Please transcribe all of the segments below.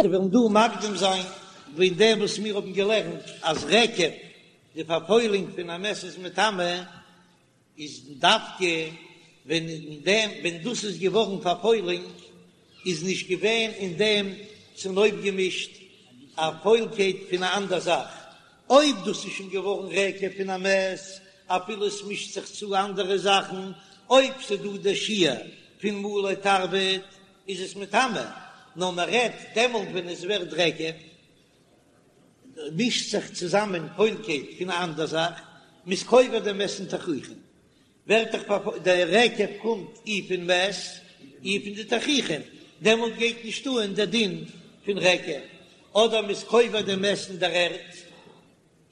מיר וועלן דא מקדים זיין וועגן דעם וואס מיר האבן געלערנט אז רקב, די פארפוילונג פון א מת איז מטמא, איז דווקא ווען אין דעם ווען דאס איז געווארן פארפוילונג איז נישט געווען אין דעם צונויפגעמישט א פוילקייט פון א אנדער זאך, אויב דאס איז שוין געווארן רקב פון א מת אפילו עס מישט זיך צו אנדערע זאכן, אויב ס'דא דער שיעור פון מלא תרווד איז עס מטמא, נאר מען רעדט דעמאלט ווען עס ווערט רקב, מישט זיך צוזאמען פוילקייט פון א אנדער זאך, מ'איז קובר דעם מת אין תכריכים, ווערט דאך דער רקב קומט אי פון מת אי פון די תכריכים, דעמאלט גייט נישט אן דער דין פון רקב, אדער מ'איז קובר דעם מת אין דער ערד.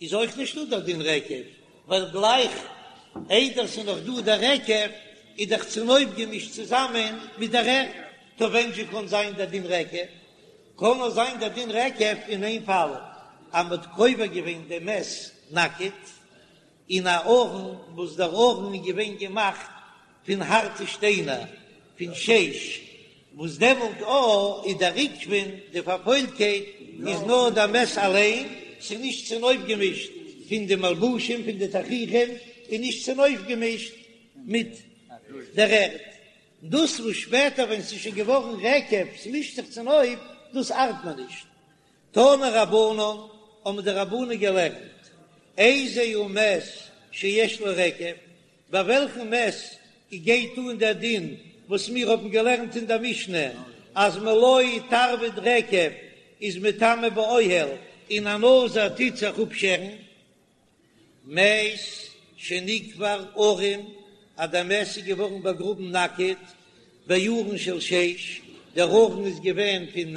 איז אויך נישטא דער דין רקב, ווייל גלייך איידער ס'איז נאך דא דער רקב איז דאך צונויפגעמישט צוזאמען מיט דער ערד, טא ווען זשע קאן זיין דער דין רקב? קאן נאר זיין דער דין רקב אין איין פאל, אז מ'האט קובר געווען דעם מת נאקעט אין א ארון וואס דער ארון איז געווען געמאכט פון הארטע שטיינער פון שיש, וואס דעמאלט א איז דער רקבון, די פארפוילטקייט איז נאר דער מת אליין, ס'איז נישט צונויפגעמישט פון די מלבושים פון די תכריכים, און נישט צונויפגעמישט מיט דער ערד. דאס וואס שפעטער ווען ס'איז שוין געווארן רקב, ס'מישט זיך צונויף, דאס ארט מען נישט. תנו רבנן, האבן די רבנן געלערנט, איזהו מת שיש לו רקב, ביי וועלכן מת גייט אן דער דין וואס מיר האבן געלערנט אין דער משנה אז מלא תרווד רקב איז מטמא באוהל און א נזיר טוט זיך אפשערן? מת שנקבר ערום אז דער מת איז געווארן באגראבן נאקעט בארון של שיש, דער ארון איז געווען פון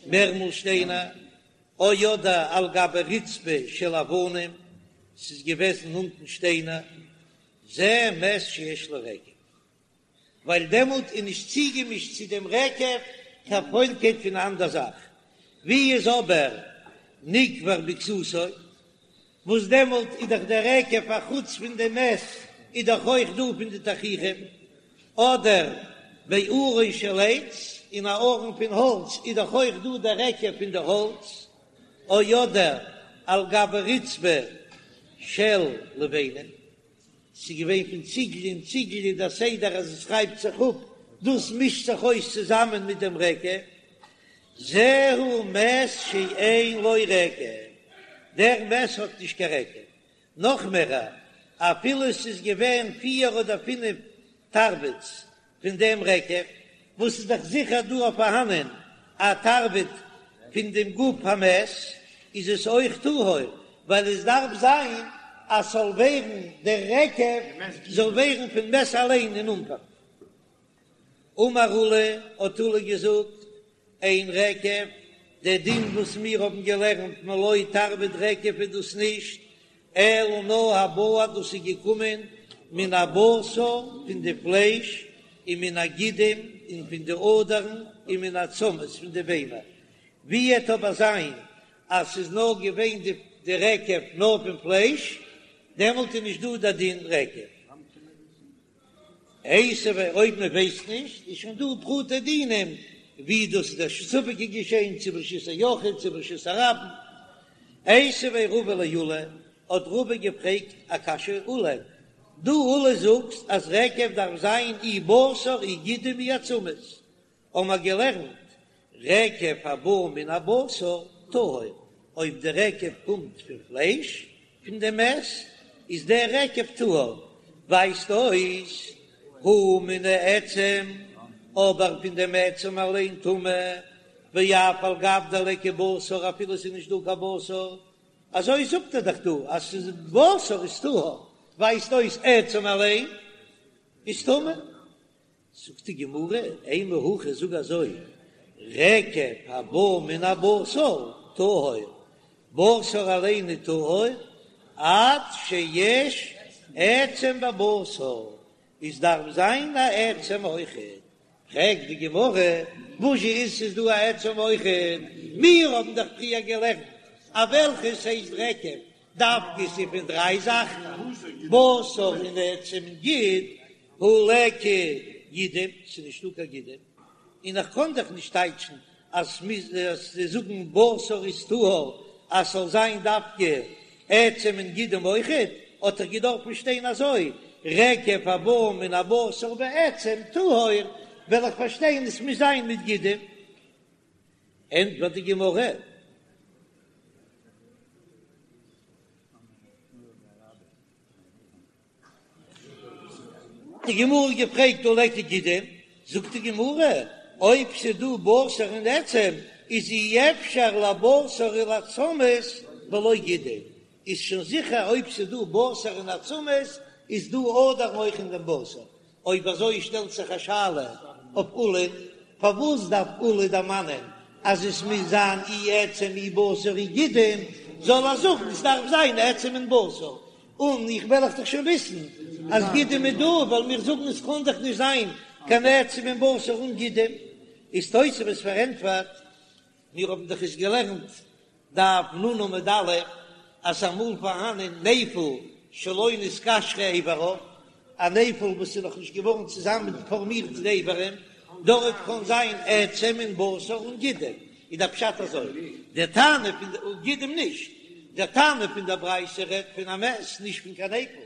מערמל שטיינער, או אדער על גבי רצפה של אבנים, ס'איז געוועזן אונטן שטיינער, זה מת שיש לו רקב, ווייל דעמאלט איז נישט צוגעמישט צו דעם רקב קיין פוילקייט פון א אנדער זאך, ווי איז אבער נקבר בכסותו, וואס דעמאלט איז דאך דער רקב א חוץ פון דעם מת איז דאך אויך דא פון די תכריכים, אדער בארון של עץ, אין א ארון פון האלץ איז דאך אויך דא דער רקב פון די האלץ, או אדער על גבי רצפה של לבנים, ס'איז געווען פון ציגל און ציגל איז דער סדר אז עס רייבט זיך אפ, דאס מישט זיך אויס צוזאמען מיט דעם רקב, זהו מת שאין לו רקב, דער מת האט נישט קיין רקב, נאך מער, אפילו עס איז געווען פיר אדער פינף תרוודות פון דעם רקב, וואס איז דאך זיכער דא אויף פארהאנען א תרווד פון דעם גוף המת, איז עס אויך טהור, ווייל עס דארף זיין אז ס'זאל ווערן דער רקב זאל ווערן פון מת אליין אין אנפאנג. אמר עולא, האט עולא געזאגט, אין רקב, דער דין וואס מיר האבן געלערנט מלא תרווד רקב איז דאס נישט, אלא נאר הבא דאס איז געקומען מן הבשר פון די פלייש און מן הגידים און פון די אדערן און מן העצמות פון די ביינער, ווי עט אבער זיין אז ס'איז נאר געווען די רקב נאר פון פלייש, דעמאלט איז נישט דא דער דין רקב. איתיביה אויב מען ווייסט נישט איז שוין דא פרטי דינים ווי דאס איז דער ספק איז געשען צו ברשות היחיד צו ברשות הרבים. איתיביה רבא לעולא האט רבא געפרעגט א קשיא עולא דו עולא זאגסט אז רקב דארף זיין אי בשר אי גידים אי עצמות האבן מיר געלערנט, רקב הבא מן הבשר טהור, אויב די רקב קומט פון פלייש פון די מת, איז דער רקב טהור, ווייזט אויס הא מן העצם, אבער פון דעם עצם אליין טמא, ואף על גב דליכא בשר אפילו ס'איז נישט דא קיין בשר, אזוי זאגט ער דאך דא אז ס'איז בשר איז טהור, ווייזט אויס עצם אליין איז טמא. זאגט די גמרא, אימא הכי זאג אזוי, רקב הבא מן הבשר טהור, בשר אליין איז טהור, עד שיש עצם בבשר, עס דארף זיין א עצם אויכעט, פרעגט די גמרא, וואס זשע איז ס'איז דא א עצם אויכעט, מיר האבן דאך פריער געלערנט אז וועלכעס הייסט רקב דווקא ס'איז פון דריי זאכן, בשר און עצם און גיד, הא ליכא גידים, ס'איז נישטא קיין גידים, און איך קען דאך נישט טייטשן. אז מ'מוז זאגן בשר איז טהור אז ס'זאל זיין דווקא עצם און גידים אויכעט, האט דאך געדארפן שטיין אזוי, רקב הבא מן הבשר ועצם טהור, וועל איך פארשטיין עס מוז זיין מיט גידים. ענטפערט די גמרא. די גמרא געפרעגט הא ליכא גידים, זאגט די גמרא, אויב ס'דא בשר און עצם איז אי אפשר לבשר ולעצמות בלא גידים, איז שוין זיכער אויב ס'דא בשר און עצמות איז דא אדערן אויך אין דעם בשר, אויב אזוי שטעלט זיך א שאלה אויף עולא'ן, פארוואס דארף עולא דערמאנען אז עס מוז זיין אי עצם אי בשר אי גידים, זאל ער זאגן עס דארף זיין עצם און בשר, און איך וועל איך דאך שוין וויסן אז גידים איז דא, ווייל מיר זאגן עס קען דאך נישט זיין קיין עצם און בשר אן גידים, איז תוספות פארענטפערט, מיר האבן דאך עס געלערנט דף נ עמוד א', אז ס'איז אמאל פארהאנען נפל שלא נתקשרו איבריו, א נפל וואס איז נאך נישט געווארן צוזאמען פארמירט די איברים, דארט קען זיין עצם און בשר און גידים, איז דער פשט אזוי, דער תנא פון די גידים נישט, דער תנא פון דער ברייתא רעדט פון א מת נישט פון קיין נפל,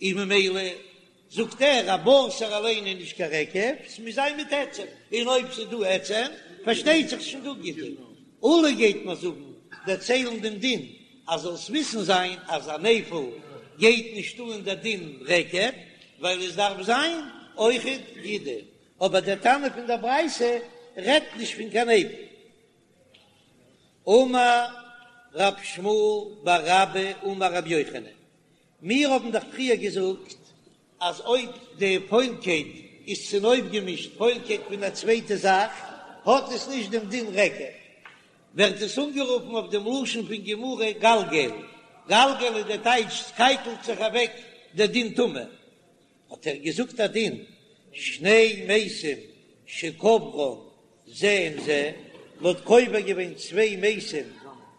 און ממילא זאגט ער א בשר אליין איז נישט קיין רקב, ס'מוז זיין מיט עצם, און אויב ס'איז דא עצם פארשטייט זיך ס'שוין דא גידים. עולא גייט מיר זאגן, דערציילן דעם דין, אז זאלסט וויסן זיין אז א נפל גייט נישט אן דער דין רקב, ווייל עס דארף זיין אויכעט גידים, אבער דער תנא פון דער ברייתא רעדט נישט פון קיין נפל. אמר רב שמואל בר אבא אמר רבי יוחנן, מיר האבן דאך פריער געזאגט אז אויב די פוילקייט איז צונויפגעמישט פוילקייט פון א צווייטע זאך האט עס נישט דעם דין רקב, ווערט עס אנגערופן אויף דעם לשון פון גמרא גלגל, גלגל איז דער טייטש ס'קייקלט זיך אוועק דער דין טומאה, האט ער געזאגט א דין, שני מתים שקברן זה עם זה, מ'האט קובר געווען צוויי מתים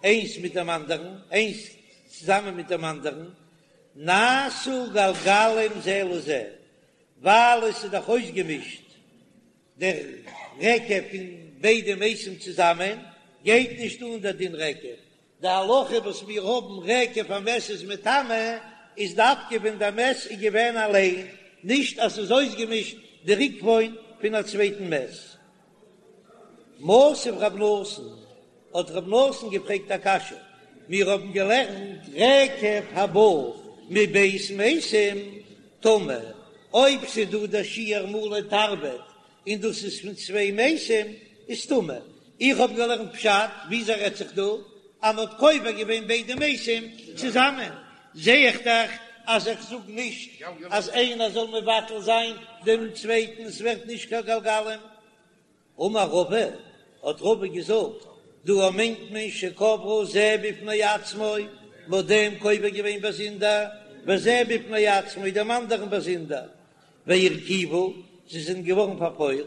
איינס מיט דעם אנדערן, איינס צוזאמען מיט דעם אנדערן, נעשו גלגלים זה לזה, ווייל עס איז דאך אויסגעמישט דער רקב פון ביידע מתים צוזאמען, גייט נישט אן דער דין רקב, די הלכה וואס מיר האבן רקב א מת איז מטמא איז דווקא ווען דער מת איז געווען אליין, נישט אז ס'איז אויסגעמישט די רקבון פון א צווייטן מת. מתיב רב נתן, האט רב נתן געפרעגט א קשיא, מיר האבן געלערנט רקב הבא מב' מתים טמא, אויב ס'איז דא דער שיעור מלא תרווד און דאס איז פון צוויי מתים איז טמא. איך האב געלערנט פשט, וויאזוי רעדט זיך דא אז מ'האט קובר געווען ביידע מתים צוזאמען, זע איך דאך אז איך זאג נישט אז איינער זאל מבטל זיין דעם צווייטן, עס ווערט נישט קיין גלגלים. אמר רבא, האט רבא געזאגט, דא מיינט מען שקברו זה בפני עצמו, מ'האט דעם קובר געווען באזונדער, וזה בפני עצמו, דעם אנדערן באזונדער, והרקיבו, זיי זענען געווארן פארפוילט,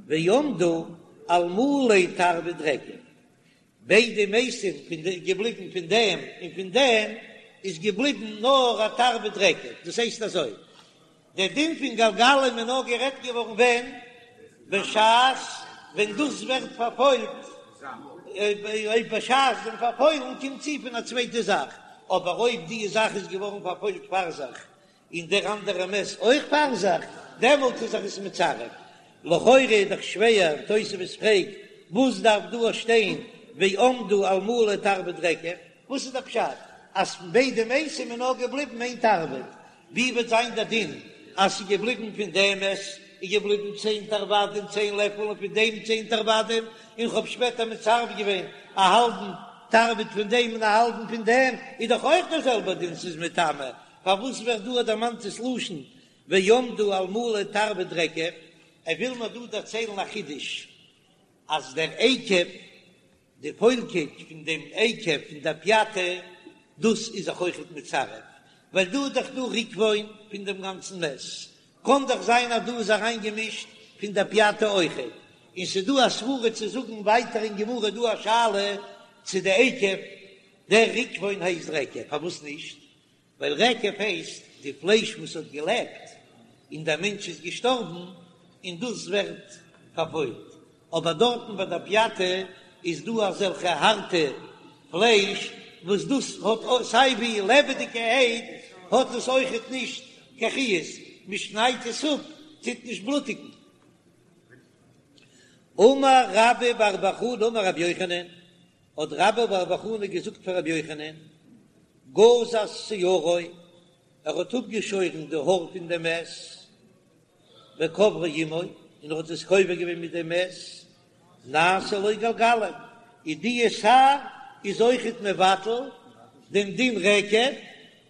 ועמדו על מלא תרווד רקב, ביידע מתים פון די געבליבן פון דעם און פון דעם איז געבליבן נאר א תרווד רקב, דאס הייסט אזוי, דער דין פון גלגלים איז נאר גערעדט געווארן ווען? בשעת ווען דאס ווערט פארפוילט, אויב בשעת דעם פארפוילן קומט צו פון א צווייטע זאך, אבער אויב די זאך איז געווארן פארפוילט פאר זיך און דער אנדערע מת אויך פאר זיך, דעמאלט איז זיך עס מצרף. לכאורה איז דאך שווער, תוספות פרעגט, וואס דארף דא שטיין ועמדו על מלא תרווד רקב? וואס איז דער פשט אז פון ביידע מתים איז נאר געבליבן איין תרווד? ווי וועט זיין דער דין אז ס'איז געבליבן פון דעם מת איז געבליבן צען תרוודין צען לעפל און פון דעם צען תרוודין, און כ'האב שפעטער מצרף געווען א האלבן תרווד פון דעם און א האלבן פון דעם, איז דאך אויך דער זעלבער דין ס'איז מטמא, פארוואס ווערט דא דערמאנט דאס לשון ועמדו על מלא תרווד רקב? ער וויל מיר דא דערציילן א חידוש, אז דער אקב, די פוילקייט פון דעם אקב פון דער פיאטע, דאס איז זיך אויכעט מצרף, ווייל דא איז דאך דא רקבון פון דעם גאנצן מת, קען דאך זיין אז דא איז אריינגעמישט פון דער פיאטע אויכעט, און ס'איז דא א סברה צו זאגן ווייטער אין גמרא דא א שאלה צו די אקב, דער רקבון הייסט רקב, פארוואס נישט? ווייל רקב הייסט די פלייש וואס האט געלעבט און דער מענטש איז געשטארבן און דאס ווערט פארפוילט. אבער דארטן ביי די פיאטע איז דא אזעלכע הארטע פלייש וואס דאס האט סיי ווי לעבעדיגערהייט האט עס אויכעט נישט קיין חיות, מען שניידט עס אפ טוט נישט בלוטיגן. אמר רבה בר בר חנה אמר רבי יוחנן, האט רבה בר בר חנה געזאגט פאר רבי יוחנן, גזז שערו, ער האט אפגעשוירן די האר פון דעם מת, וקברו עמו, און ער האט עס קובר געווען מיט דעם מת, נעשה לו גלגלים, איז די שער איז אויכעט מבטל דעם דין רקב,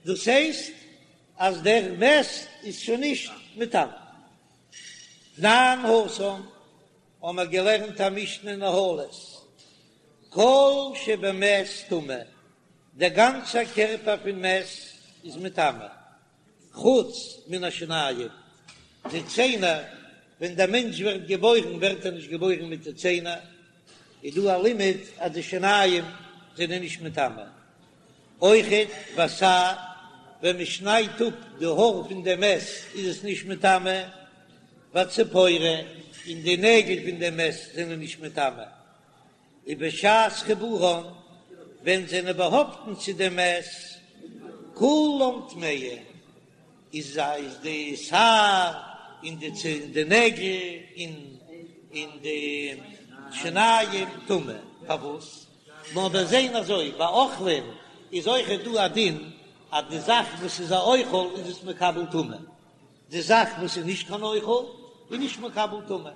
דאס הייסט אז דער מת איז שוין נישט מטמא. תנן התם, האבן מיר געלערנט א משנה אין אהלות, כל שבמת טמא, דער גאנצער קערפער פון מת איז מטמא, חוץ מן השיניים, די ציינער, ווען דער מענטש ווערט געבוירן ווערט ער נישט געבוירן מיט די ציינער, איז דא א לימוד אז די שיניים זענען נישט מטמא. אויכעט והשער, ווען מען שניידט אפ די האר פון דעם מת איז עס נישט מטמא, והצפורן, און די נעגל פון דעם מת זענען נישט מטמא. ובשעת חיבורן, ווען זענען באהאפטן צו דעם מת, כולם טמאין, איז איז די שער און די צ און די נעגל און און די שיניים טמא, פארוואס? נאר מיר זעהן אזוי ביי אוכלים איז אויכעט דא א דין אז די זאך וואס איז א אוכל איז עס מקבל טומאה, די זאך וואס איז נישט קיין אוכל איז נישט מקבל טומאה.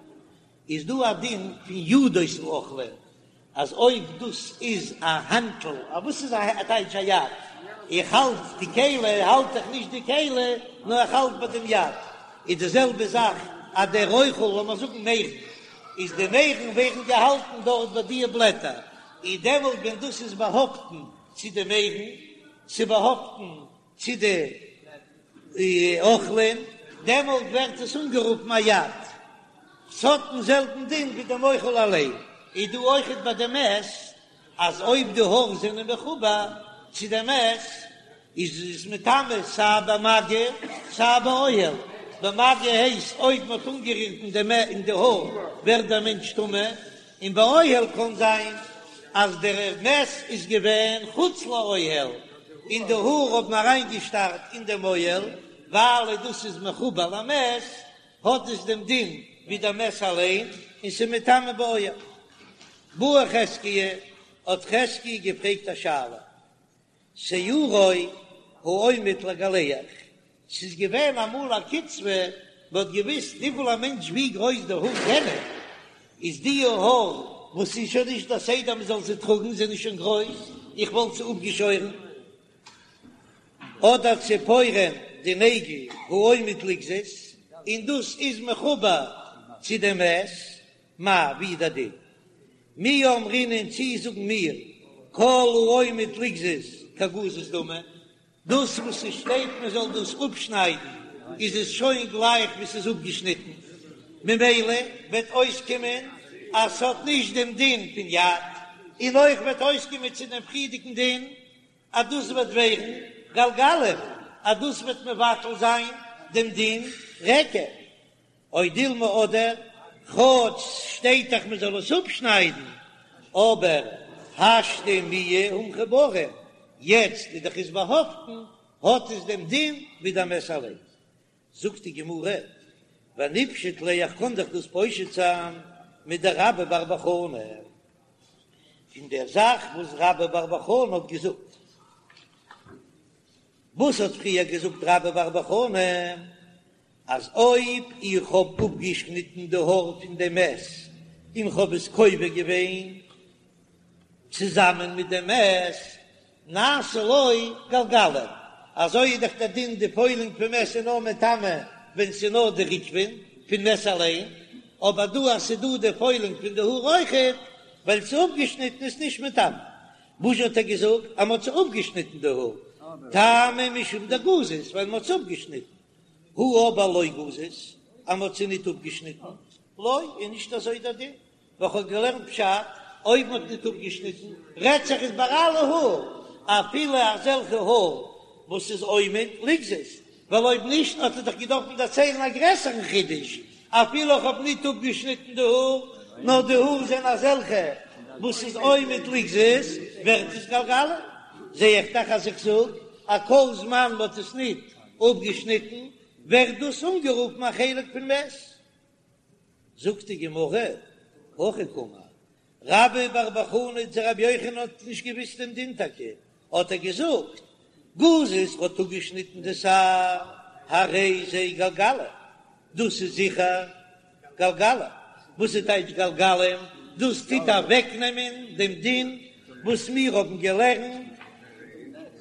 איז דא א דין פון ידות האוכלין אז אויב דאס איז א האנטל, א וואס איז א טייטש א יד? איך האלט די כלי, האלט איך נישט די כלי, נאר איך האלט ביי דעם יד. איז די זעלבע זאך אז דער אוכל, לאמיר זאגן מערן, איז די מערן ווערן געהאלטן דארט ביי די בלעטער, איז דעמאלט ווען דאס איז באהאפטן צו די מערן, ס'איז באהאפטן צו די אוכלים, דעמאלט ווערט עס אנגערופן א יד, ס'האט דעם זעלבן דין ווי דעם אוכל אליין, איז דא אויכעט ביי די מת, אז אויב די האר זענען מחובר צו די מת, איז עס מטמא סיי במגע סיי באוהל, במגע הייסט אויב מ'האט אנגערירט אין די אין די האר ווערט דער מענטש טמא, און באוהל קען זיין אז דער מת איז געווען חוץ לאוהל און די האר האבן אריינגעשטארט אין דעם אוהל, ווייל דאס איז מחובר למת האט עס דעם דין ווי דער מת אליין און ס'איז מטמא באוהל. בעי חזקיה, האט חזקיה געפרעגט א שאלה, שערו העומד לגלח, ס'איז געווען אמאל א קצבה, מ'האט געוויסט וויפיל א מענטש ווי גרויס די האר זענען, איז די האר וואס איז שוין נישט דער סדר מ'זאל זיי טראגן זענען שוין גרויס, איך וואלט זיי אפגעשוירן, אדער ציפורן די נעגל העומד לגזוז, און דאס איז מחובר צו דעם מת, מהו, ווי איז דער דין? מי אמרינן צי זאגן מיר כל העומד לגזוז כגזוז דמי, דאס וואס עס שטייט מען זאל דאס אפשניידן איז עס שוין גלייך ווי ס'איז אפגעשניטן, ממילא וועט אויסקומען אז ס'האט נישט דעם דין פון יד, און אויך וועט אויסקומען צו דעם פריערדיגן דין אז דאס וועט ווערן גלגלים, אז דאס וועט מבטל זיין דעם דין רקב. או דילמא אדער, כאטש ס'שטייט דאך מ'זאל עס אפשניידן, אבער השתא מיהא הא מחוברין, יעצט איז דאך עס באהאפטן, האט עס דעם דין ווי דער מת אליין. זאגט די גמרא, וניפשוט ליה איך קען דאך דאס פושט זיין מדרבה בר בר חנה, פון דער זאך וואס רבה בר בר חנה האט געזאגט. וואס האט פריער געזאגט רבה בר בר חנה? אז אויב איך האב אפגעשניטן די האר פון דעם מת און כ'האב עס קובר געווען צוזאמען מיט דעם מת, נעשה לו גלגלים, אזוי איז דאך דער דין, די פוילונג פון מת איז נאר מטמא ווען ס'איז נאר די רקבון פון מת אליין, אבער דא אז ס'איז דא די פוילונג פון די האר אויכעט, ווייל ס'איז אפגעשניטן איז נישט מטמא. וואס האט ער געזאגט אז מ'האט זיי אפגעשניטן די האר? טעמא משום דגזז, ווייל מ'האט זיי אפגעשניטן. הא אבער לא גזז, אז מ'האט זיי ניט אפגעשניטן, לא, איז נישט אזוי דער דין, ווייל כ'האב געלערנט פשט, אויב מ'האט ניט אפגעשניטן, רעדט זיך עס ביי אלע האר, אפילו אזעלכע האר וואס איז עומד לגזוז, ווייל אויב נישט האט ער דאך געדארפן דערציילן א גרעסערן חידוש, אפילו איך האב ניט אפגעשניטן די האר, נאר די האר זענען אזעלכע וואס איז עומד לגזוז, ווערט עס גלגלים. זע איך דאך אז איך זאג אז כל זמן מ'האט עס ניט אפגעשניטן ווערט דאס אנגערופן א חלק פון מת. זאגט די גמרא, הכי קאמר רבה בר בר חנה צו רבי יוחנן האט נישט געוויסט דעם דין טאקע, האט ער געזאגט, גזז האט אפגעשניטן די שער, הרי זה גלגלים, דאס איז זיכער גלגלים, וואס איז טייטש גלגלים? דאס טוט אוועקנעמען דעם דין וואס מיר האבן געלערנט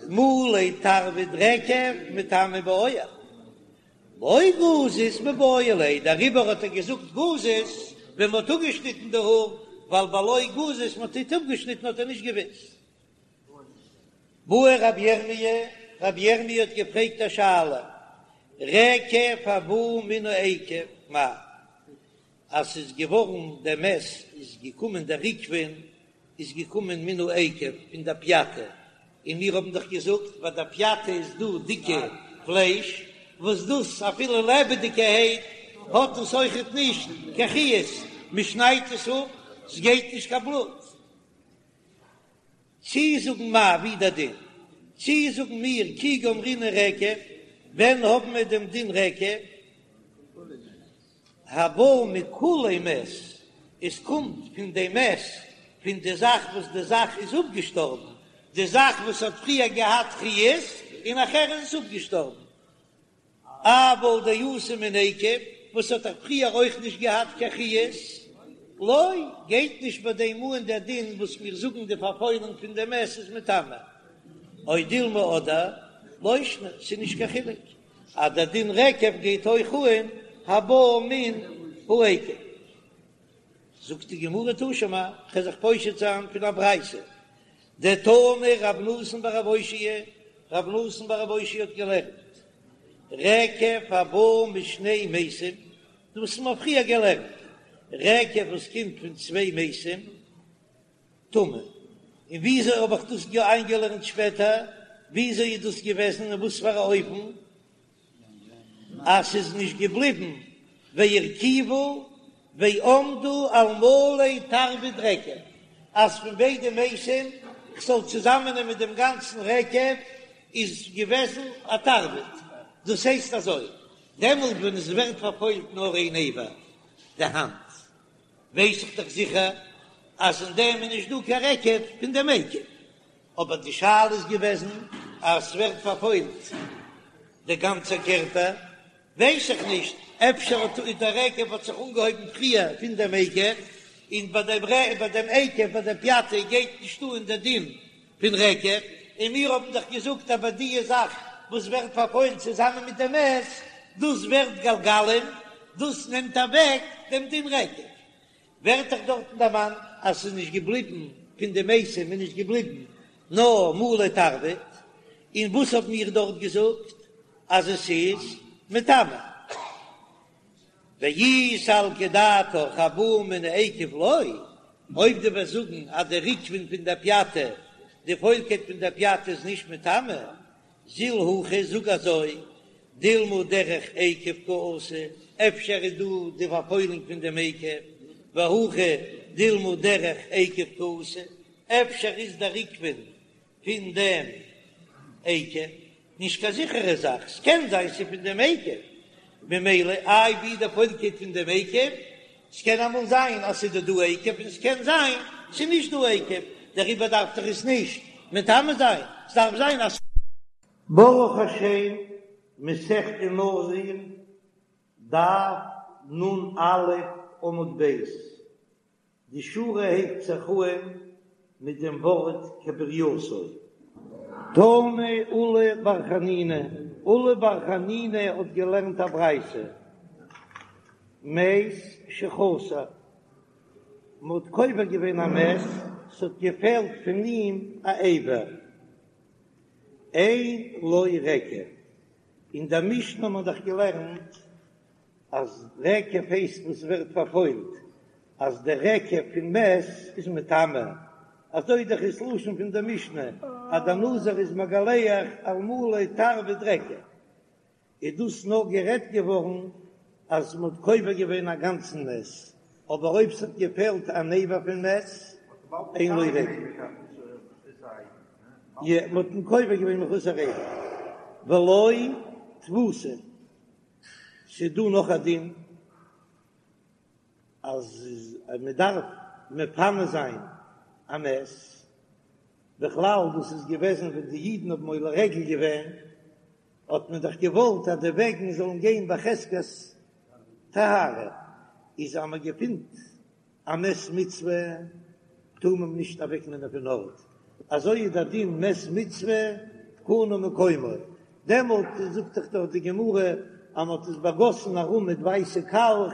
מלא תרווד רקב מטמא באוהל. לא גזז מיבעי ליה, דעריבער האט ער געזאגט גזז ווען מ'האט אפגעשניטן די האר, ווייל בלא גזז מ'האט ניט אפגעשניטן האט ער נישט געוואוסט. בעי רבי ירמי', רבי ירמי' האט געפרעגט א שאלה, רקב הבא מן העקב, מהו, אז ס'איז געווארן דער מת איז געקומען דער ריקבון איז געקומען מן העקב פון דער פיאטע, און מיר האבן דאך געזאגט ביי דער פיאטע איז דא דיקע פלייש וואס דאס אפילו לעבעדיגערהייט האט עס אויכעט נישט קיין חיות, מען שניידט עס אפ ס'גייט נישט קיין בלוט. צי זאגן מיר ווי דער דין, צי זאגן מיר כי גמרינן רקב, ווען האבן מיר דעם דין רקב? הבא מכולי מת, עס קומט פון די מת, פון די זאך וואס די זאך איז אפגעשטארבן, די זאך וואס האט פריער געהאט חיות און נאכער איז עס אפגעשטארבן, אבל דאתא מן עקב, וואס האט דאך פריער אויך נישט געהאט קיין חיות, לא, גייט נישט ביי דעם אן דער דין וואס מיר זאגן די פארפוילונג פון די מת איז מטמא, או דילמא אדער, לא שנא, ס'איז נישט קיין חילוק. אז דער דין רקב גייט אויך אן הבא מן העקב. זאגט די גמרא תא שמע, כ'וועל זיך פושט זיין פון א ברייתא, דתני רב נתן בר רב אושעיא, רב נתן בר רב אושעיא האט געלערנט, רקב הבא משני מתים, דאס האט מען פריער געלערנט, רקב וואס קומט פון צוויי מתים, טמא. און וויאזוי האב איך דאס איינגעלערנט שפעטער? וויאזוי איז דאס געוועזן און וואס פאר א אופן אז ס'איז נישט געבליבן והרקיבו ועמדו על מלא תרווד רקב, אז פון ביידע מתים כ'זאל צוזאמענעמען דעם גאנצן רקב איז געוועזן א תרווד. דאס הייסט אזוי, דעמאלט ווען עס ווערט פארפוילט נאר איין אבר, די האנט, ווייס איך דאך זיכער אז אין דעם איז נישט דא קיין רקב פון דעם עקב, אבער די שאלה איז געוועזן אז ס'ווערט פארפוילט דער גאנצער קערפער, ווייס איך נישט, אפשר האט דער רקב האט זיך אנגעהויבן פריער פון דעם עקב, און ביי דעם ביי דעם עקב ביי דער פיאטע גייט נישט אן דער דין פון רקב, און מיר האבן דאך געזאגט אז ביי די זאך וואס ווערט פארפוילט צוזאמען מיט דעם מת, דאס ווערט גלגלים, דאס נעמט אוועק דעם דין רקב. ווערט דאך דארטן דערמאנט אז ס'איז נישט געבליבן פון די מתים איז נישט געבליבן נאר מלא תרווד, און וואס האבן מיר דארט געזאגט אז עס איז מטמא? ואי סלקא דעתך הבא מן העקב לא, אויב דו וועסט זאגן אז די ריקבון פון דער פיאטע, די פוילקייט פון דער פיאטע איז נישט מטמא, זיל הכי, זאג אזוי, דילמא דרך עקב קאתי, אפשר איז דא די פארפוילונג פון דעם עקב, והכא דילמא דרך עקב קאתי, אפשר איז דער ריקבון פון דעם עקב, נישט קיין זיכערע זאך, ס'קען זיין ס'איז פון דעם עקב, ממילא איי ווי די פוילקייט פון דעם עקב, ס'קען אמאל זיין אז ס'איז דא דא עקב און ס'קען זיין ס'איז נישט דא עקב, דעריבער דארף דאך עס נישט מטמא זיין, ס'דארף זיין אז. ברוך השם, מסכת נזיר, דף נ"א עמוד ב', די שורה הייבט זיך אהן מיט דעם ווארט כברייתו. תנא עולא בר חנינא, עולא בר חנינא האט געלערנט א ברייתא, מת שחסר, מען האט קובר געווען א מת, ס'האט געפעלט פון אים א אבר, אין לו רקב, אין דער משנה האט מען דאך געלערנט אז רקב הייסט וואס ווערט פארפוילט, אז דער רקב פון מת איז מטמא, אזוי דאך איז לשון פון דער משנה אז דער נזיר איז מגלח על מלא תרווד רקב, איז דאס נאר גערעדט געווארן אז מען האט קובר געווען א גאנצן מת. אבער אויב ס'האט געפעלט אן אבר פון מת, אין לו רגל. יא, מ'האט אים קובר געווען מחוסר אבר. ולא תבוסה. ס'איז דא נאך א דין אז מ'דארף מפנה זיין א מת. בכלל דאס איז געוועזן ווען די אידן האבן עולה רגל געווען, האט מען דאך געוואלט אז די וועגן זאלן גיין בחזקת טהרה, איז אז מען געפינט א מת מצוה טאר מען נישט אוועק נעמען פון ארט, אזוי איז דער דין מת מצוה קנה מקומו, דעמאלט זאגט דאך דארט די גמרא אז מען האט עס באגאסן ארום מיט ווייסע קאלך,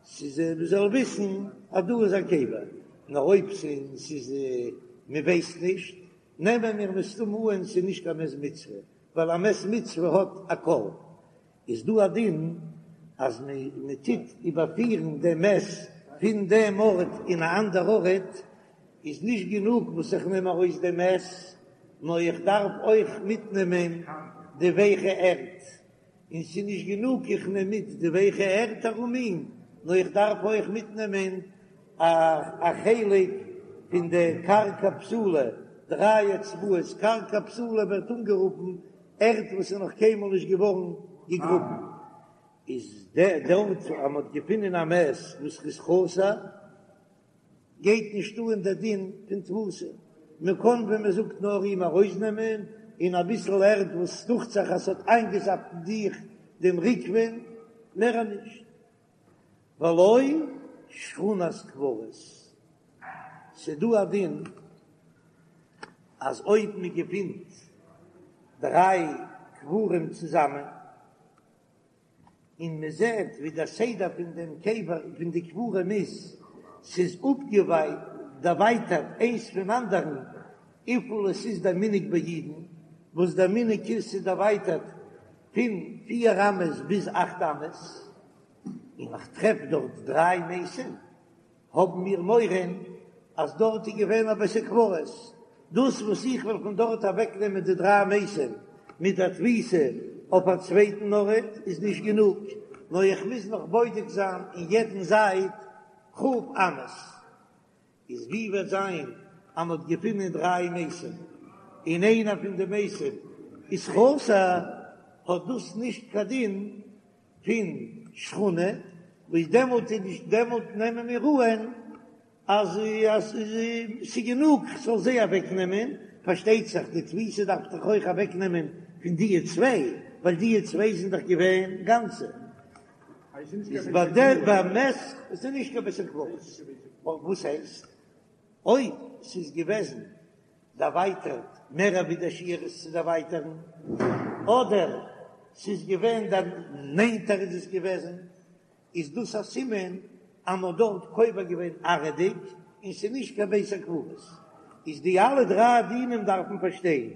ס'איז מען זאל וויסן אז דא איז א קבר, נאר אויב ס'איז מען ווייסט נישט, נעמען מיר מסתמא אן ס'איז נישט קיין מת מצוה, ווייל א מת מצוה האט א קול. איז דא א דין אז מען טוט איבערפירן דעם מת פון דעם ארט אין א אנדער ארט, איז נישט גענוג וואס איך נעם ארויס דעם מת, נאר איך דארף אויך מיטנעמען די ווייכע ערד. און ס'איז נישט גענוג איך נעם מיט די ווייכע ערד ארום אים, נאר איך דארף אויך מיטנעמען א חלק פון די קרקע פסולה, דריי אצבעות, קרקע פסולה ווערט אנגערופן ערד וואס איז נאך קיינמאל נישט געווארן געגראבן, איז דארט אז מ'האט געפונען א מת וואס איז חסר, גייט נישט אן דער דין פון תבוסה, מען קען ווי מען זאגט נאר אים ארויסנעמען און אביסל ערד וואס דוכט זיך אז ס'האט איינגעזאפט אין זיך דעם ריקבון, מער נישט. ולא שכונת קברות, ס'דא א דין אז אויב מען געפינט דריי קברים צוזאמען, און מען זעט ווי דער סדר פון דעם קבר פון די קברים איז, ס'איז אפגעדערווייטערט איינס פון אנדערן, וויפיל עס איז דער מנהג ביי אידן, וואס דער מנהג איז ס'איז דערווייטערט פון פיר אמות ביז אכט אמות, און איך טרעף דארט דריי מתים. האבן מיר מורא אז דארט איז געווען א בית הקברות, דאס וואס איך וועל פון דארט אוועקנעמען די דריי מתים מיט א תביסה אויף א צווייטן ארט איז נישט גענוג, נאר איך מוז נאך בודק זיין אין יעדן זייט כ' אמות. איז ווי וועט זיין אז מען האט געפונען דריי מתים און איינער פון די מתים איז חסר, האט דאס נישט קיין דין פון שכונה, וואס דעמאלט איז נישט, דעמאלט נעמען מיר אן אז אז ס'איז גענוג כ'זאל זיי אוועק נעמען, פארשטייט זיך די תביסה דארף דאך אויך אוועק נעמען פון דיע צוויי, ווייל דיע צוויי זענען דאך געווען גאנצע. איז ביי דער ביי מת איז נישט קיין בית הקברות, וואס הייסט אויב ס'איז געוועזן דערווייטערט מער ווי דער שיעור איז צו דערווייטערן, אדער ס'איז געווען נענטער איז עס געוועזן, איז דאס א סימן אז מ'האט דארט קובר געווען עראי'דיג און ס'איז נישט קיין בית הקברות. איז די אלע דריי דינים דארף מען פארשטיין,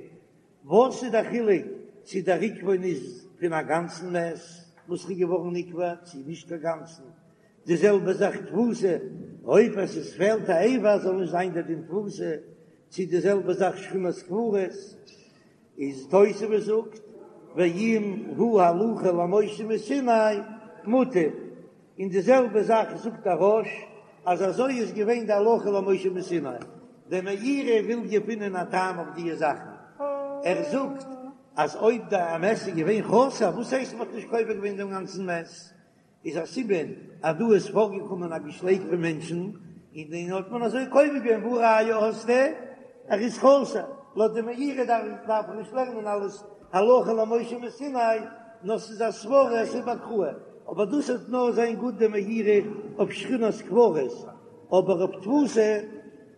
וואס איז דער חילוק צו דער ריקבון איז פון א גאנצן מת וואס איז געווארן נקבר צו נישט קיין גאנצן, די זעלבע זאך תבוסה, אויב עס איז פעלט א אבר זאל נישט זיין דער דין תבוסה, צו די זעלבע זאך שכונת קברות, איז תוספות זאגט ואם הוא הלכה למשה מסיני מוטב, און די זעלבע זאך זאגט דער רא"ש אז אזוי איז געווען די הלכה למשה מסיני, דער מאירי וויל געפינען א טעם אויף דיע זאכן, ער זאגט אז אויב די מת איז געווען חסר, וואס הייסט מען האט נישט קובר געווען דעם גאנצן מת? איז א סימן אז דא איז פארגעקומען א געשלעג פון מענטשן, און דעם האט מען אזוי קובר געווען, והא ראיה האסטו ער איז חסר, לויט די מאירי דארף מען נישט לערנען אלעס הלכה למשה מסיני, נאר ס'איז א סברא עס איז באקראי, אבער דאס וועט נאר זיין גוט די מאירי אויף שכונת קברות, אבער אויף תבוסה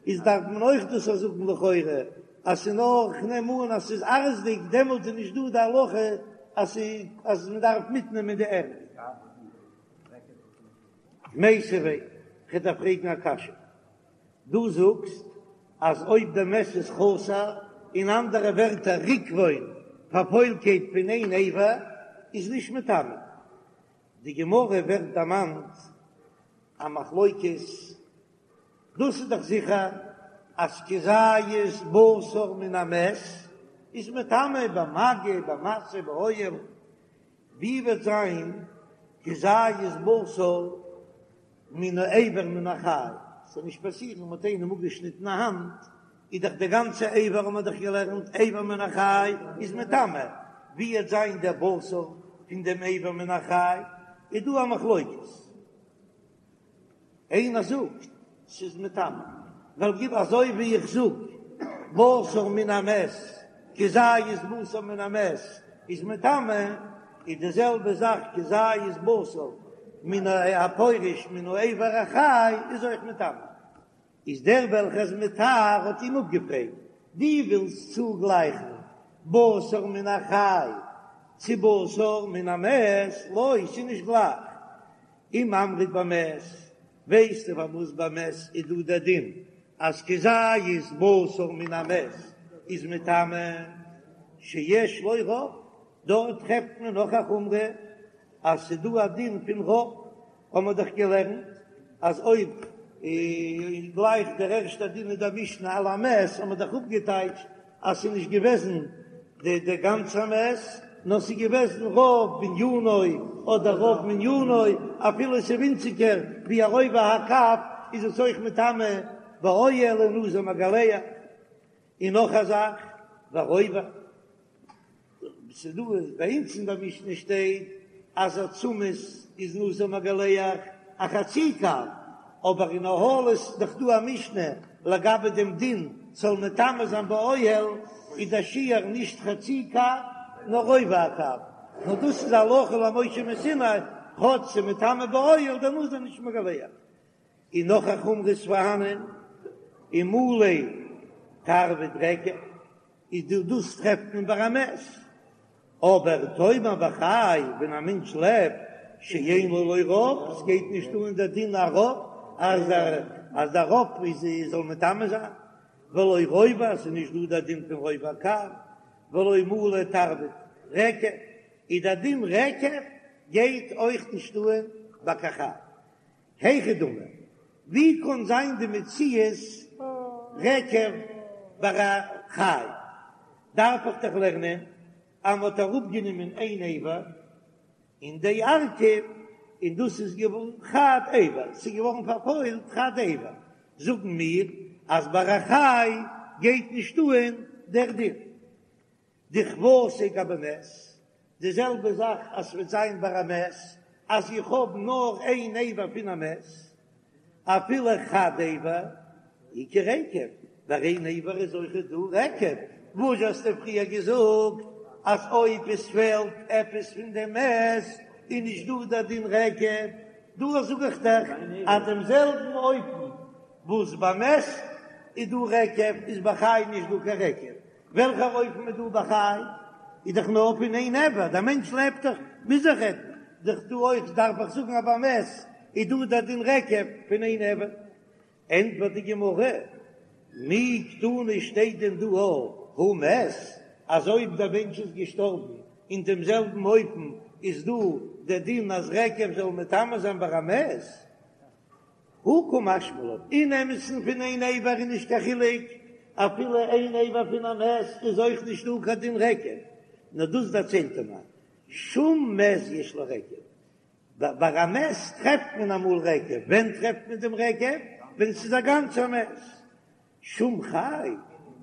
איז דארף מען אויך דאס זאגן לכאורה אז ס'איז נאר כ'נעם אן אז ס'איז עראי'דיג דעמאלט איז נישט דא די הלכה אז אז מ'דארף מיטנעמען די ערד. מיתיבי, כ'דארף פרעגן א קשיא. דו זאגסט אז אויב די מת איז חסר, אין אנדערע ווערטער ריקבון, פארפוילקייט פון איין אבר, איז נישט מטמא. די גמרא ווערט דערמאנט א מחלוקת, דאס איז דאך זיכער אז כזית בשר מן המת איז מטמא במגע במשא באוהל, ווי וועט זיין כזית בשר? מן האבר מן החי, ס'זאל נישט פאסירן מ'האט איינעם אפגעשניטן א האנט, איז דאך די גאנצע אבר האט מען דאך געלערנט אבר מן החי איז מטמא, ווי וועט זיין דער בשר פון דעם אבר מן החי, איז דא א מחלוקת. איינער זאגט ס'איז מטמא, ווייל גיב אזוי ווי איך זאג בשר מן המת כזית בשר מן המת איז מטמא, איז די זעלבע זאך כזית בשר מן הפורש מן האבר החי איז אויך מטמא. איז דער וועלכער איז מטהר האט אים אפגעפרעגט, דו ווילסט צוגלייכן בשר מן החי צו בשר מן המת? לא, ס'איז נישט גלייך. אם אמרת במת, ווייסטו פארוואס ביי מת איז דא דער דין אז כזית בשר מן המת איז מטמא, שיש לו רוב, דארט טרעפט מען נאך א חומרא אז ס'איז דא א דין פון רוב, האבן מיר דאך געלערנט אז אויב גלייך דער ערשטער דין אין דער משנה על המת האבן מיר דאך אפגעטייטשט אז ס'איז נישט געוועזן די די גאנצע מת, נאר ס'איז געוועזן רוב בנינו אדער רוב מנינו, אפילו ס'איז ווינציגער ווי א רובע הקב איז עס אויך מטמא באוהל און נזיר מגלח. און נאך א זאך, ורובע. ס'איז דא ביי אונז אין דער משנה שטייט אז עצמות איז נזיר מגלח א חצי קב, אבער אין אהלות איז דאך דא א משנה לגבי דעם דין ס'זאל מטמא זיין באוהל איז דער שיעור נישט חצי קב נאר רובע הקב, נאר דאס איז הלכה למשה מסיני, כאטש ס'איז מטמא באוהל דער נזיר נישט מגלח. און נאך א חומרא איז פארהאנען ומלא תרווד רקב. איז דא דאס טרעפט מען ביי א מת, אבער תאמר בחי ווען א מענטש לעבט שאין לו לא רוב, עס גייט נישט אן דער דין א רוב אז אז דער רוב איז זאל מטמא זיין, ולא רובע עס איז נישט דא דער דין פון רובע הקב, ולא מלא תרווד רקב, איז דער דין רקב גייט אויך נישט אן ביי קיין חי. היכי דמי, ווי קאן זיין די מציאות רקב ביי א חי? דארף איך דאך לערנען אז מ'האט אראפגענומען איין אבר און דארקיב און דאס איז געווארן חד אבר, ס'איז געווארן פארפוילט חד אבר, זאגן מיר אז ביי א חי גייט נישט אן דער דין. דכוותיה גבי מת, די זעלבע זאך אז ס'וועט זיין ביי א מת, אז איך האב נאר איין אבר פון א מת, אפילו חד אבר, איכא רקב, ביי איין אבר איז אויכעט דא רקב, וואס האסטו פריער געזאגט אז אויב עס פעלט עפעס פון דעם מת איז נישט דא דער דין רקב, דא זאג איך דיך אז דעם זעלבן אופן וואס ביי מת איז דא רקב איז ביי חי נישט דא קיין רקב, וועלכער אופן איז דא ביי חי? איז דאך נאר פון איין אבר, דער מענטש לעבט דאך, מוז איך רעדן דאך דא אויך, דארף איך זאגן אז ביי מת איז דא דער דין רקב פון איין אבר. ענטפערט די גמרא, מי קתני שטייט דען דא הא מת, אז אויב דער מענטש איז געשטארבן אין דעם זעלבן אופן איז דא דער דין אז רקב זאל מטמא זיין ביי א מת? הא קא משמע לן, אין אמת'ן פון איין אבר איז נישט קיין חילוק, אפילו איין אבר פון א מת איז אויך נישט דא קיין דין רקב, נאר דאס דערציילט ער מיר, שום מת יש לו רקב, ביי א מת טרעפט מען אמאל רקב, ווען טרעפט מען דעם רקב? ווען ס'איז א גאנצער מת, שום חי,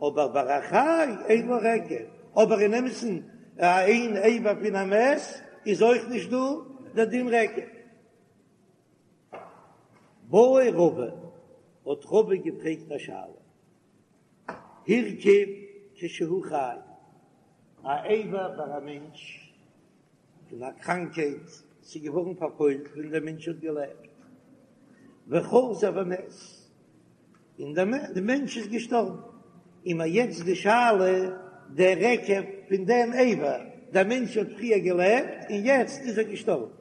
אבער ביי א חי אין לו רקב, אבער אין אמת'ן איין אבר פון א מת איז אויך נישט דא דער דין רקב. בעי רבא, האט רבא געפרעגט א שאלה, הרכיב כשהוא חי, א אבר ביי א מענטש פון א קראנקייט, ס'איז געווארן פארפוילט ווען דער מענטש האט געלעבט, וחזר ומת, און דער מענטש איז געשטארבן, און מיר יעצט די שאלה, דער רקב פון דעם אבר, דער מענטש האט פריער געלעבט און יעצט איז ער געשטארבן,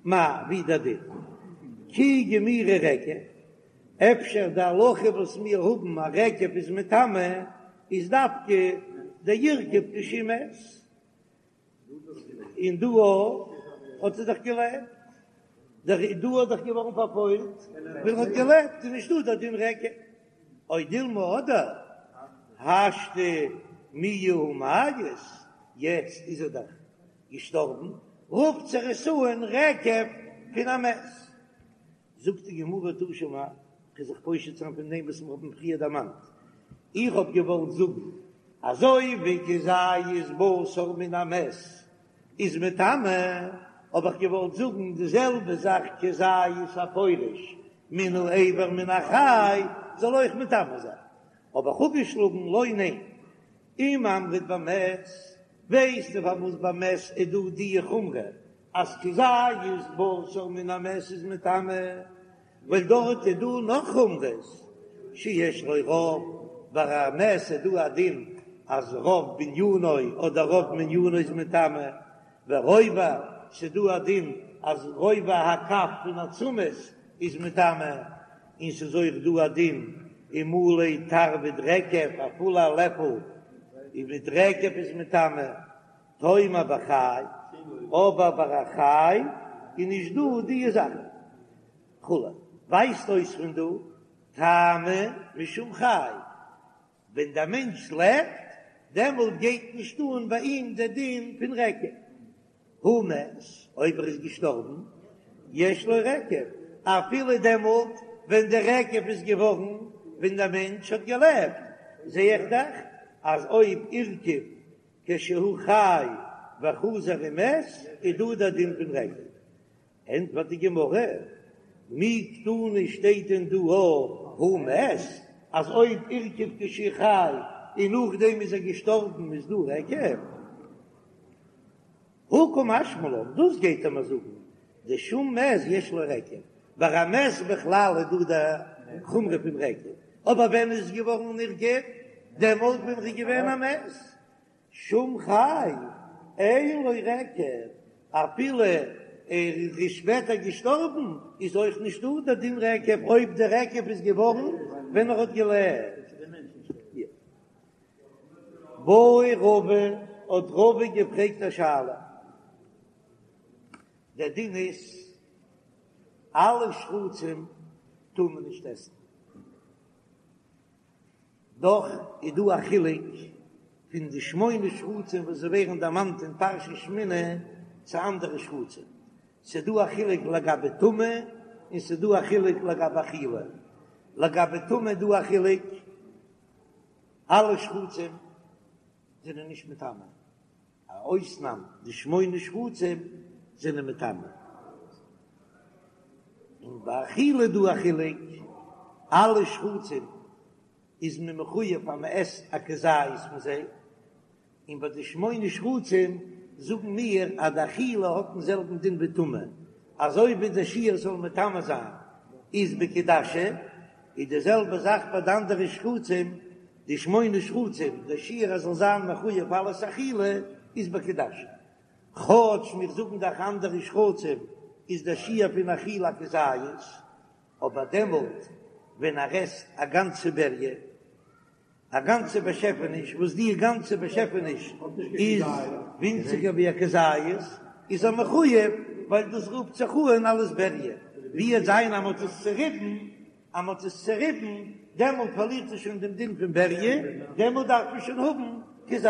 מאי, ווי דער דין? כי גמירי רקב, אפשר די הלכה וואס מיר האבן אז רקב איז מטמא איז דווקא דהרקיב כשהוא מת, און דא האט ער דאך געלעבט, דא האט דאך געווארן פארפוילט ווען ער האט געלעבט איז נישטא דער דין רקב, או דילמא אדער השתא מיהא הא מיית, יעצט איז ער דאך געשטארבן, רופט זיך עס אן רקב פון א מת. זאגט די גמרא תא שמע, כ'וועל זיך פושט זיין פון דעם וואס מיר האבן פריער דערמאנט, איך האב געוואלט זאגן, אזוי ווי כזית בשר מן המת איז מטמא, האב איך געוואלט זאגן די זעלבע זאך כזית הפורש מן האבר מן החי זאל אויך מטמא זיין, האב איך אפגעשלאגן לא ניין, אם אמרת במת, ווייסטו פארוואס במת איז דא די חומרא אז כזית בשר מן המת איז מטמא, ווייל דארט איז דא נאך חומרות שיש לו רוב, ביי א מת איז דא א דין אז רוב בנינו אדער רוב מנינו איז מטמא, ורובע, ס'איז דא א דין אז רובע הקב פון עצמות איז מטמא, און ס'איז אויך דא א דין ומלא תרווד רקב, א פולע לעפל מיט רקב איז מטמא. תאמר בחי, אבער ביי א חי איז נישט דא די זאכן. כו' ווייזט אויס פון דא טעמא משום חי, ווען דער מענטש לעבט דעמאלט גייט נישט אן ביי אים דער דין פון רקב. הא מת, אויב ער איז געשטארבן, יש לו רקב, אפילו דעמאלט ווען דער רקב איז געווארן ווען דער מענטש האט געלעבט, זע איך דאך אז אויב הורכב כשהוא חי וחזר ומת איז דא דער דין פון רקב. ענטפערט די גמרא, מי קתני שטייט דען דא הא מת אז אויב הורכב כשהוא חי און נאכדעם איז ער געשטארבן איז דא רקב? הא קא משמע לן, דאס גייט ער מיר זאגן, דשום מת יש לו רקב, ביי א מת בכלל איז דא די חומרא פון רקב, אבער ווען איז געווארן נרקב? דעמאלט ווען ר'איז געווען א מת. שום חי אין לו רקב, אפילו ער איז שפעטער געשטארבן איז אויך נישט דא דער דין רקב אויב דער רקב איז געווארן ווען ער האט געלעבט. בעי רבא האט רבא געפרעגט א שאלה, דער דין איז אלע שרצים טאר מען נישט עסן, דאך איז דא א חילוק פון די שמונה שרצים וואס זיי ווערן דערמאנט אין פרשת שמיני צו אנדערע שרצים, ס'איז דא א חילוק לגבי טומאה און ס'איז דא א חילוק לגבי אכילה, לגבי טומאה איז דא א חילוק, אלע שרצים זענען נישט מטמא, א אויסנאם די שמונה שרצים זענען מטמא, און ביי אכילה איז דא א חילוק, אלע שרצים איז מען מחויב אז מען עסט א כזית פון זיי, און ביי די שמונה שרצים זאגן מיר אז די אכילה האט דעם זעלבן דין ווי טומאה, אזוי ווי די שיעור זאל מטמא זיין איז בכעדשה, איז די זעלבע זאך ביי די אנדערע שרצים, די שמונה שרצים, די שיעור אז זאל זיין מחויב אלעס אכילה איז בכעדשה. כאטש מיר זאגן דאך אנדערע שרצים איז די שיעור פון אכילה כזית, אבער דעמאלט ווען ער עסט א גאנצע בריה, א גאנצע באשעפעניש וואס די גאנצע באשעפעניש איז ווינציגער ווי א כזית, איז ער מחויב ווייל דאס רופט זיך אן אלס בריה, ווי עט זיין אז מ'האט עס צוריבן, אז מ'האט עס צוריבן דעמאלט פארלירט עס שוין דעם דין פון בריה, דעמאלט דארף מען שוין האבן כזית.